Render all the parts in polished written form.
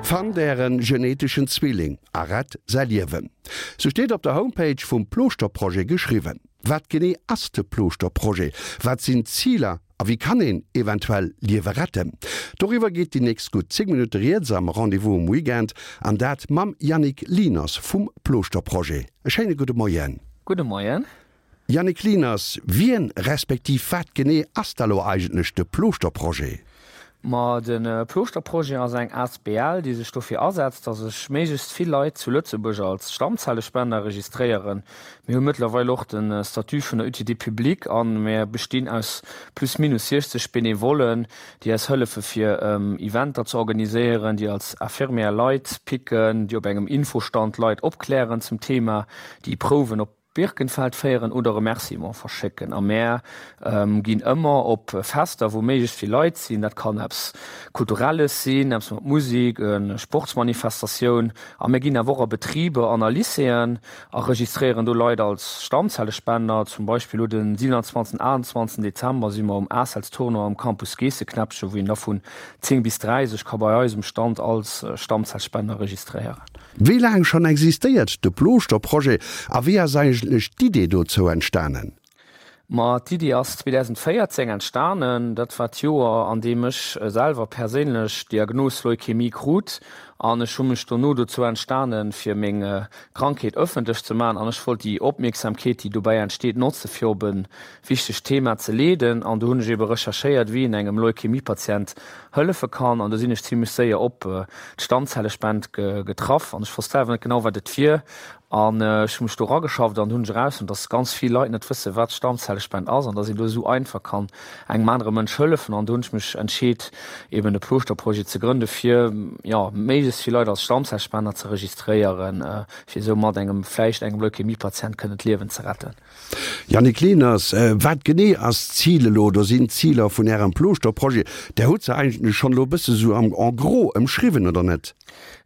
Fannt ären geneteschen Zwilling a rett säi Liewen. Sou steet op der Homepage vum Plooschter-Projet geschriwwen. Wat genee ass de Plooschter-Projet? Wat sinn d'Ziler a wéi kann een eventuell Liewe retten? Doriwwer geet déi nächst gutt 10 Minutte rieds am Rendez-vous um Weekend an dat mam Yannick Lieners vum Plooschter-Projet. E schéine gudde Moien. Gudde Moien. Yannick Lieners, Wien respektiv wat genee ass da lo eigentlech de Plooschter-Projet? Ma de Plooschter-Projet ass eng asbl, déi sech dofir asetzt, datt sech méiglechst vill Leit zu Lëtzebuerg als Stammzellespender registréieren. Mir hu mëttlerweil och de Statut vun der Utilité publique a mir bestinn aus plus minus 60 Benevollen, déi eis hëllefe fir Eventer ze organiséieren, déi als Infirmière Leit picken, déi op engem Infostand Leit opklären zum Thema, déi Prouwen op Birkenfeld féieren oder Remerciement verschécken. A mär ginn ëmmer op Fester, wou méiglechst vill Leit sinn. Dat kann eppes Kulturelles sinn, eppes mat Musik, e Sportsmanifestatioun. A mir ginn awer och a Betriber an a Lycéeën a registréieren do Leit als Stammzellespender. Zum Beispill elo den 27, 28 Dezember si mer um ACELS-Tournoi am Campus Geesseknäppchen, wou een da vun 10 bis 3 sech ka bei eis um Stand als Stammzellspender registréieren. Wéi laang schonn existéiert de Plooschter-Projet a wéi ass eigentlech d'Idee dozou entstanen? Ma d'Idee ass 2014 entstanen. Dat war d'Joer, an deem ech selwer perséinlech d'Diagnos Leukämie krut. An ech hu mech dono dozou entstanen, fir meng Krankheet ëffentlech ze maachen. An ech wollt déi Opmierksamkeet, déi dobäi entsteet, notze fir op e wichtegt Thema ze leeden. An do hunn ech ebe recherchéiert, wéi een engem Leukämie-Patient hëllefe kann. An do sinn ech zimlech séier op d'Stammzellespend getraff an ech wosst selwer net genau, wat et wier. An ech hu mech do erageschafft an hunn ech erausfonnt, dass ganz vill Leit net wëssen, wat d'Stammzellespend ass an dass een do esou einfach kann engem anere Mënsch hëllefen. An do hunn ech mech entscheet, eben de Plooschter-Projet ze grënde fir, jo, méiglechst vill Leit als Stammzellspender ze registréieren, fir esou mat engem, vläicht engem Leukämie-Patient kënnen d'Liewen ze retten. Yannick Lehners, Wat genee ass d'Zil elo oder sinn d'Ziler vun Ärem Plooschter-Projet? Der hutt se eigentlech schonn elo e bësse sou am en gros ëmschriwwen, oder net?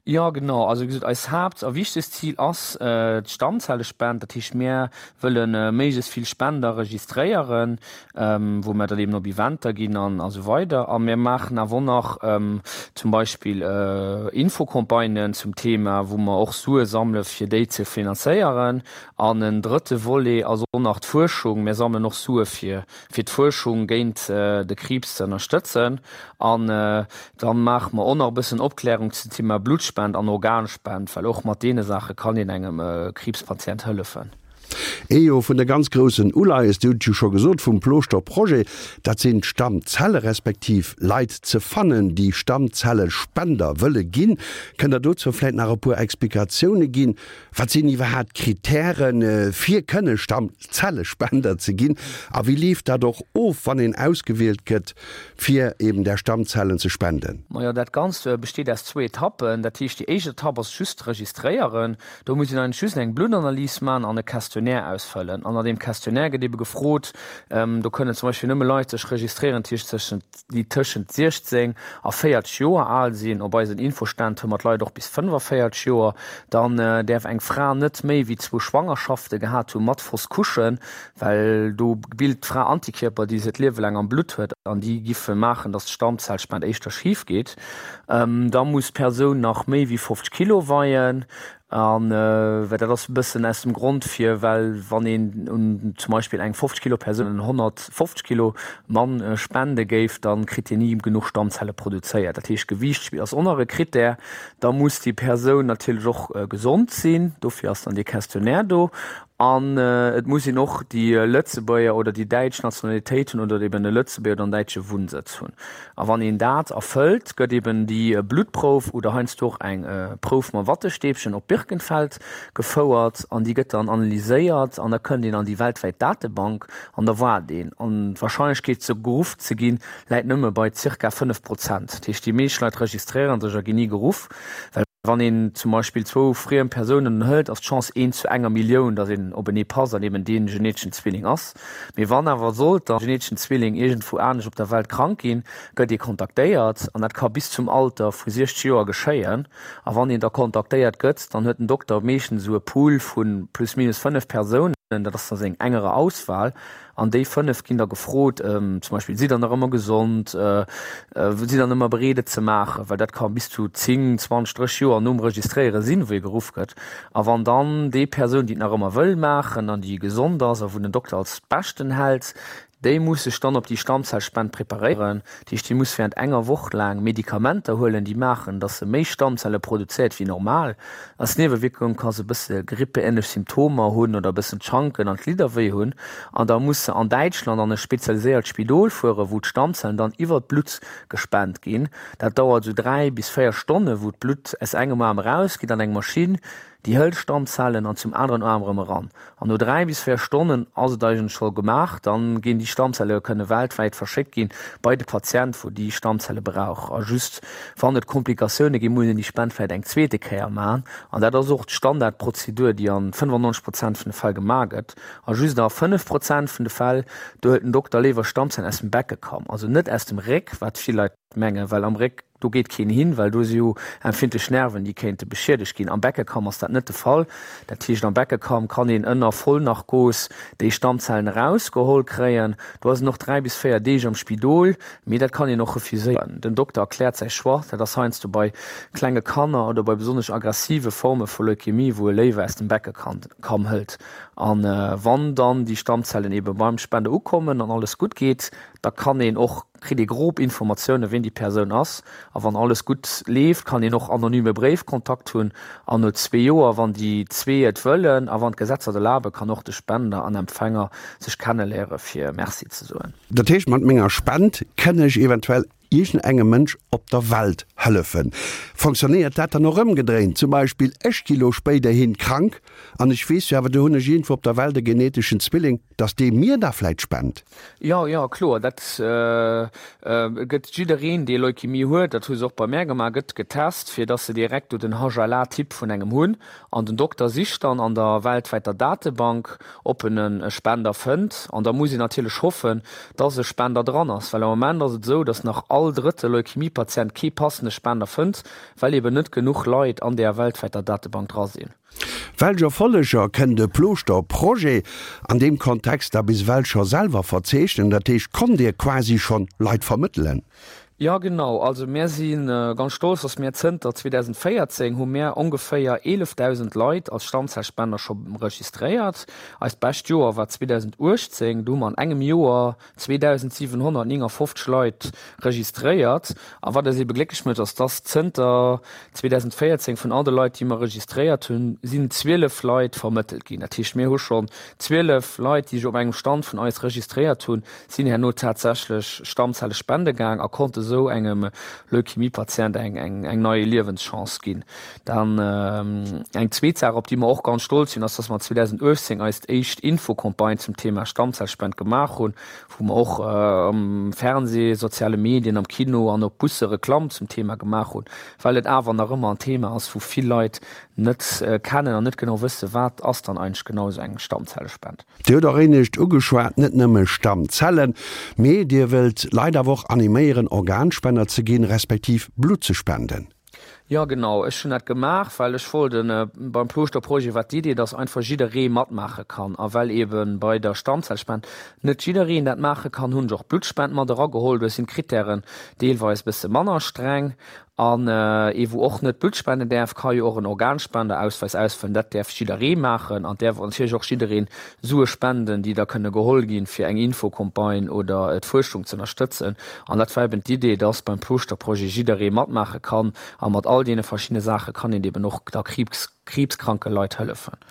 Jo, genau. Also wéi gesot, eist Haapt a wichtegst Zil ass d'Stammzellespend. Dat heescht, mir wëlle méiglechst vill Spender registréieren, wou mir dann eben op Eventer ginn an esou weider. A mir maachen awer och nach zum Beispill Infocampagnen zum Thema, wou mer och Sue sammele fir déi ze finanzéieren. An en drëtte Volet ass och nach d'Fuerschung. Mir sammelen och Sue fir fir d'Fuerschung géint de Kriibs ze ënnerstëtzen. An da maache mer och nach e bëssen Opklärung zum Thema Bluttspend an Organspend, well och mat deene Saache kann een engem Kriibspatient hëllefen. Ee jo vun de ganz groussen Uleies, Dir hutt et jo scho gesot, vum Plooschter Projet, dat sinn d'Stammzelle respektiv Leit ze fannen, déi Stammzellespender wëlle ginn. Kënnt Der dozou vläicht nach e puer Explikatioune ginn? Wat sinn iwwerhaapt d'Kritären, fir kënne Stammzellespender ze ginn? A wéi leeft dat och of, wann een ausgewielt gëtt, fir eben där Stammzellen ze spenden? Majo, dat Ganzt besteet aus zwou Etappen. Dat heescht, déi éischt Etapp ass just d'Registréieren. Do muss een eigentlech just eng Bluttanalys maachen an e Questionnaire ausfëllen. An an deem Questionnaire gëtt ebe gefrot, do kënnen zum Beispill nëmme Leit sech registréieren, déi tëschent déi tëschent 16 a 40 Joer al sinn, op eisen Infoständ hu mer d'Leit och bis 45 Joer, dann däerf eng Fra net méi wéi zwou Schwangerschafte gehat hu mat Fausse couche, well do bilt d'Fra Antikierper, déi se d'Liewe laang am Blutt huet an déi giffe maachen, datt d'Stammzellspend éischter schif geet. Da muss d'Persoun nach méi wéi 50 Kilo weien. An well dat ass e bëssen aus dem Grond fir, well wann een un zum Beispill eng 50 Kilo Persoun en 150 Kilo Mann spende géif, da kritt deen ni genuch Stammzelle produzéiert. Dat heescht Gewiicht ass och nach e Krittär. Da muss déi Persoun natierlech och gesond sinn, dofir ass dann dee Questionnaire do. An et muss een och déi Lëtzebuerger oder déi däitsch Nationalitéit hunn oder eben e Lëtzebuerger oder en däitsche Wunnsëtz hunn. A wann een dat erfëllt, gëtt eben déi Bluttprouf oder heiansdo och eng Prouf mam Wattestäbchen op Birkenfeld gefouert an déi gëtt dann analyséiert an da kënnt een an déi weltwäit Datebank an da waart een. An d'Warscheinlechkeet ze geruff ze ginn, läit nëmme bei zirka 5 Prozent. Dat heescht, déi meescht Leit registréiere sech a ginn ni geruff, well. Wann een zum Beispill zwou friem Persounen hëlt, ass d'Chance eent zu enger Millioun, datt een openee passt an eben dee geneteschen Zwilling ass. Mee wann awer sollt der geneteschen Zwilling iergendwou anescht op der Welt krank ginn, gëtt ee kontaktéiert an dat ka bis zum Alter vu 60 Joer geschéien. A wann een da kontaktéiert gëtt, dann huet den Dokter meeschtens esou e Pool vu plus minus 5 Persounen. Dat ass da seng engere Auswahl. An déi 5 ginn da gefrot, zum Beispill, Sidd Der nach ëmmer gesond? Sidd Der ëmmer bereet et ze maachen? Well dat ka bis zu 10, 20, 30 Joer nom Registréiere sinn, wou ee geruff gëtt. A wann dann déi Persoun, déi et nach ëmmer wëll maachen an déi gesond ass a wou den Dokter als beschten hält, Déi muss sech dann op déi Stammzellspend preparéieren. Dat heescht, déi muss während enger Woch laang Medikamenter huelen, déi maachen, dass se méi Stammzelle produzéiert wéi normal. Als Niewewierkung ka se e bësse grippeähnlech Symptomer hunn oder e bëssen d'Schanken an d'Glidder wéi hunn. An da muss se an Däitschland an e spezialiséiert Spidol fueren, wou d'Stammzellen dann iwwer d'Blutt gespent ginn. Dat dauert esou 3 bis 4 Stonne, wou d'Blutt aus engem Aarm erausgeet an eng Maschinn, Déi hëlt Stammzellen an zum aneren Aarm erëm eran. An no 3 bis 4 Stonnen ass et eigentlech scho gemaach. Dann ginn déi Stammzelle kënne weltwäit verschéckt ginn bei de Patient wou déi Stammzelle brauch. A just wann et Komplikatioune ginn, muss een déi Spend vläit eng zweete Kéier maachen. An dat ass och d'Standardprozedur déi an 95 Prozent vun de Fäll gemaach gëtt. A just a 5 Prozent vun de Fäll, do hëlt den Dokter léiwer Stammzellen aus dem Beckekamm, also net aus dem Réck, wat vill Leit mengen, well am Réck, do geet keen hin, well do si jo empfindlech Nerven, déi kéinte beschiedegt ginn. Am Beckekamm ass dat net de Fall. Dat heescht, am Beckekamm kann een ënner Vollnarkos déi Stammzellen erausgeholl kréien. Do ass een och 3 bis 4 Deeg am Spidol, mee dat kann een och refuséieren. Den Dokter erkläert säi Choix. Dat ass heiansdo bei klenge Kanner oder bei besonnesch aggressive Forme vu Leukemie, wou e léiwer aus dem Beckekamm hëlt. A wann dann déi Stammzellen ebe beim Spender ukommen an alles gutt geet, da kann een och kritt ee grob Informatioune ween déi Persoun ass a wann alles gutt leeft, kann een och anonyme Bréifkontakt hunn an no zwee Joer, wann déi zwee et wëllen a wann d'Gesetzer et erlaben, kann och de Spender an Empfänger sech kenneléiere fir Merci ze soen. Dat heescht, mat menger Spend kënn ech eventuell iergendengem Mënsch op der Welt hëllefen. Fonctionnéiert dat dann och ëmgedréint? Zum Beispill, ech gi lo spéiderhin krank an ech weess jo awer, do hunn ech iergendwou op der Welt e geneteschen Zwilling, dass dee mir da vläit spent? Jo, jo, kloer. Dat gëtt jiddereen, dee Leukemie huet, dat hu se och bei mär gemaach, gëtt getest, fir dass se direkt do den HLA-Typ vun engem hunn. An den Dokter sicht dann an der weltwäiter Datebank, ob en e Spender fënnt. An da muss een natierlech hoffen, dass e Spender dran ass, well am Moment ass et esou, dass nach all drëtte Leukemie-Patient kee passende Spender fënnt, well eben net genuch Leit an där weltwäiter Datebank dra sinn. Welch Erfolleger kënn de Plooschter Projet an deem Kontext da bis ewell scho selwer verzeechnen? Dat heescht, konnt Dir quasi schonn Leit vermëttelen? Jo genau, also mär si ganz stolz, dass mär zënter 2014 hu mär ongeféier 11.000 Leit als Stammzellspender scho registréiert. Eist bescht Joer war 2018, do hu mer an engem Joer 2.759 Leit registréiert. A wat eis ebe glécklech mécht, ass, dass zënter 2014 vun all de Leit, déi mer registréiert hunn, sinn 12 Leit vermëttelt ginn. Dat heescht, mir hu schonn 12 Leit, déi sech op engem Stand vun eis registréiert hunn, sinn herno tatsächlech Stammzelle spende gaang a konnte sou engem Leukemie-Patient eng, eng, eng nei Liewenschance ginn. Dann eng zweet Saach, op déi mer och ganz stolz sinn, ass, dass mer 2018 eist éischt Infocampagne zum Thema Stammzellspend gemaach hunn, wou mer och am Fernseh, soziale Medien, am Kino an op Busse Reklamm zum Thema gemaach hunn, well et awer nach ëmmer en Thema ass, wou vill Leit net kennen an net genau wëssen, wat ass dann eigentlech genau esou eng Stammzellespend. Dir hutt och éinescht ugeschwat, net nëmme Stammzellen, mee Dir wëllt Leit awer och animéieren, Organspender ze ginn, respektiv Blutt ze spenden. Jo genau, ech hunn dat gemaach, well ech wollt en, beim Plooschter Projet war d'Idee, dass einfach jidderee matmaache kann a well eben bei der Stammzellspend net jiddereen dat maache kann, hunn ech och d'Bluttspend mat erageholl. Do sinn d'Krittären deelweis bësse manner streng an ee wou och net Blutt spenden däerf, ka jo och en Organspenderausweis ausfëllen. Dat däerf jidderee maachen an däerf och natierlech och jiddereen Sue spenden, déi da kënne geholl ginn, fir eng Infocampagne oder d'Fuerschung ze ënnerstëtzen. An dat war eben d'Idee, dass beim Plooschter-Projet jidderee matmaache kann. A mat all deene verschiddene Saache kann een eben och da kriibskranke Leit hëllefen.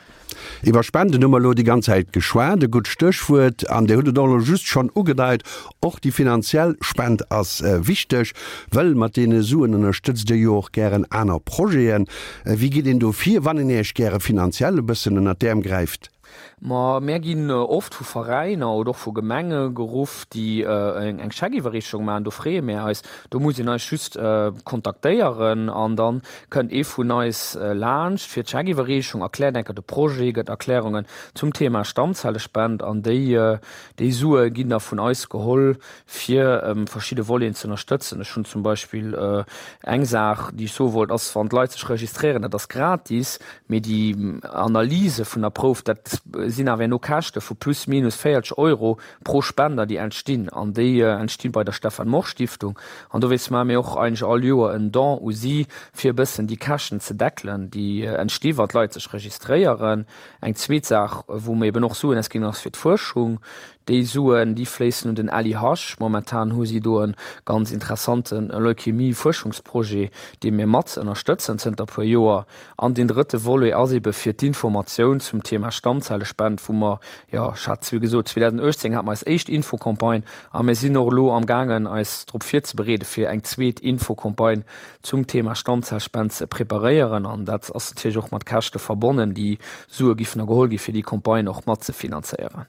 Iwwer Spenden hu mer elo déi ganz Zäit geschwat, e gutt Stéchwuert. An Dir hutt et och elo just schonn ugedeit, och déi finanziell Spend ass wichteg, wëll mat deene Suen ënnerstëtzt Dir jo och gären aner Projeten. Wéi geet een do vir, wann een Iech gäre finanziell e bëssen ënnert d'Äerm gräift? Ma mär ginn oft vu Veräiner oder och vu Gemenge geruff, déi eng Scheckiwwerreechung maachen. Do freeë mär eis. Do muss een eis just kontaktéieren an da kënnt ee vun eis laanscht fir d'Scheckiwwerreechung, erkläert enker de Projet, gëtt Erklärungen zum Thema Stammzellespend an déi déi Sue ginn da vun eis geholl, fir verschidde Voleten ze ënnerstëtzen. Ech hunn zum Beispill eng Saach, déi ech soe wollt, ass, wann d'Leit sech registréieren, dat ass gratis, mee déi Analyse vun der Prouf, dat. Dat sinn awer herno Käschte vu plus minus 40 Euro pro Spender, déi entstinn. An déi entsti bei der Stefan Morsch Stiftung. An dowéinst maache mir och eigentlech all Joer en Don u si, fir e bëssen déi Käschten ze deckelen, déi entsti wa d'Leit sech registréieren. Eng zweet Saach, wou mir eben och Suen ausginn, ass fir d'Fuerschung. Déi Suen, déi fléissen un den LIH. Momentan hu si do e ganz interessante Leukämie-Fuerschungsprojet, dee mir mat ënnerstëtzen zënter puer Joer. An deen drëtte Volet ass ebe fir d'Informatioun zum Thema Stammzellespend, wou mer, jo, ech hat es wéi gesot, 2018 hate mer eis éischt Infocampagne a mir sinn och elo amgaangen, eis drop virzebereede fir eng zweet Infocampagne zum Thema Stammzellspend ze preparéieren. An dat ass natierlech och mat Käschte verbonnen. Déi Sue giffen da geholl gi fir déi Campagne och matzefinanzéieren.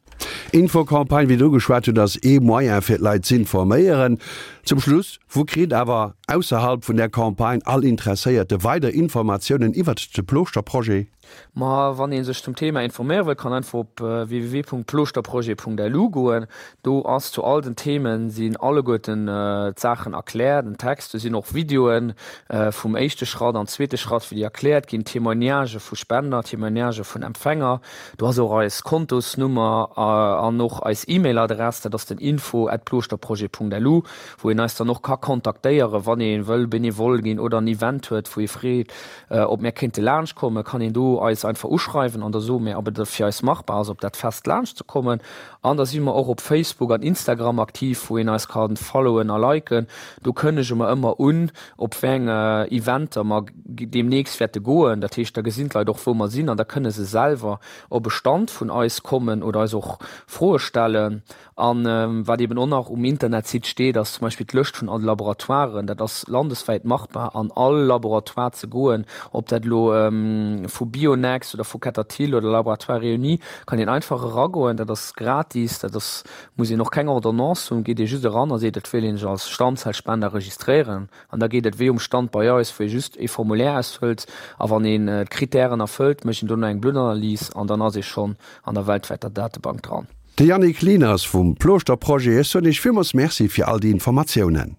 Infocampagne, wéi Der ugeschwat hutt, ass ee Moyen fir d'Leit z'informéieren. Zum Schluss, Wou kritt awer ausserhalb vun där Campagne all Interesséierte weider Informatiounen iwwert de Plooschterprojet? Ma wann ee sech zum Thema informéiere wëll, kann einfach op www.plooschterprojet.lu goen. Do ass zu all den Themen sinn alleguerten d'Saachen erkläert, en Text. Do sinn och Videoen vum éischte Schratt an zweete Schratt, wéi déi erkläert ginn, Témoignagë vu Spender, Témoignagë vun Empfänger. Do ass och eis Kontosnummer an och eis E-Mail-Adress, dat ass den info at plooschterprojet.lu, wou een eis dann och ka kontaktéieren, wann ee wëll Benevole ginn oder en Event huet, wou ee freet, ob mär kéinte laanscht kommen, kann een do eis einfach uschreiwen an da soe mär, ob et fir eis machbar ass, op dat Fest laanscht ze kommen. An da si mer och op Facebook an Instagram aktiv, wou een eis ka followen a liken. Do kënnege mer ëmmer un, op wéi eng Eventer mer deemnächst wäerte goen. Dat heescht, da gesinn d'Leit och, wou mer sinn an da kënne se selwer op e Stand vun eis kommen oder eis och Froe stellen. A wat eeben och nach um Internetsite steet, ass zum Beispill d'Lëscht vun all de Laboratoiren. Dat ass landeswäit machbar, an all Laboratoire ze goen, ob dat elo vu Bionext oder vu Ketterthill oder Laboratoires Réunis, kann een einfach eragoen. Dat ass gratis, dat ass, muss een och keng Ordonnance hunn, geet ee just eran a seet, et wéilt een sech als Stammzellspender registréieren. An da geet et wéi um Stand bei eis, wou ee just ee Formulaire ausfëllt a wann een d'Krittären erfëllt, mécht een dono eng Bluttanalys an dann ass ee schonn an der weltwäiter Datebank dran. De Yannick Lieners vum Plooschter Projet, ech soen Iech villmools Merci fir all déi Informatiounen.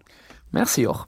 Merci och.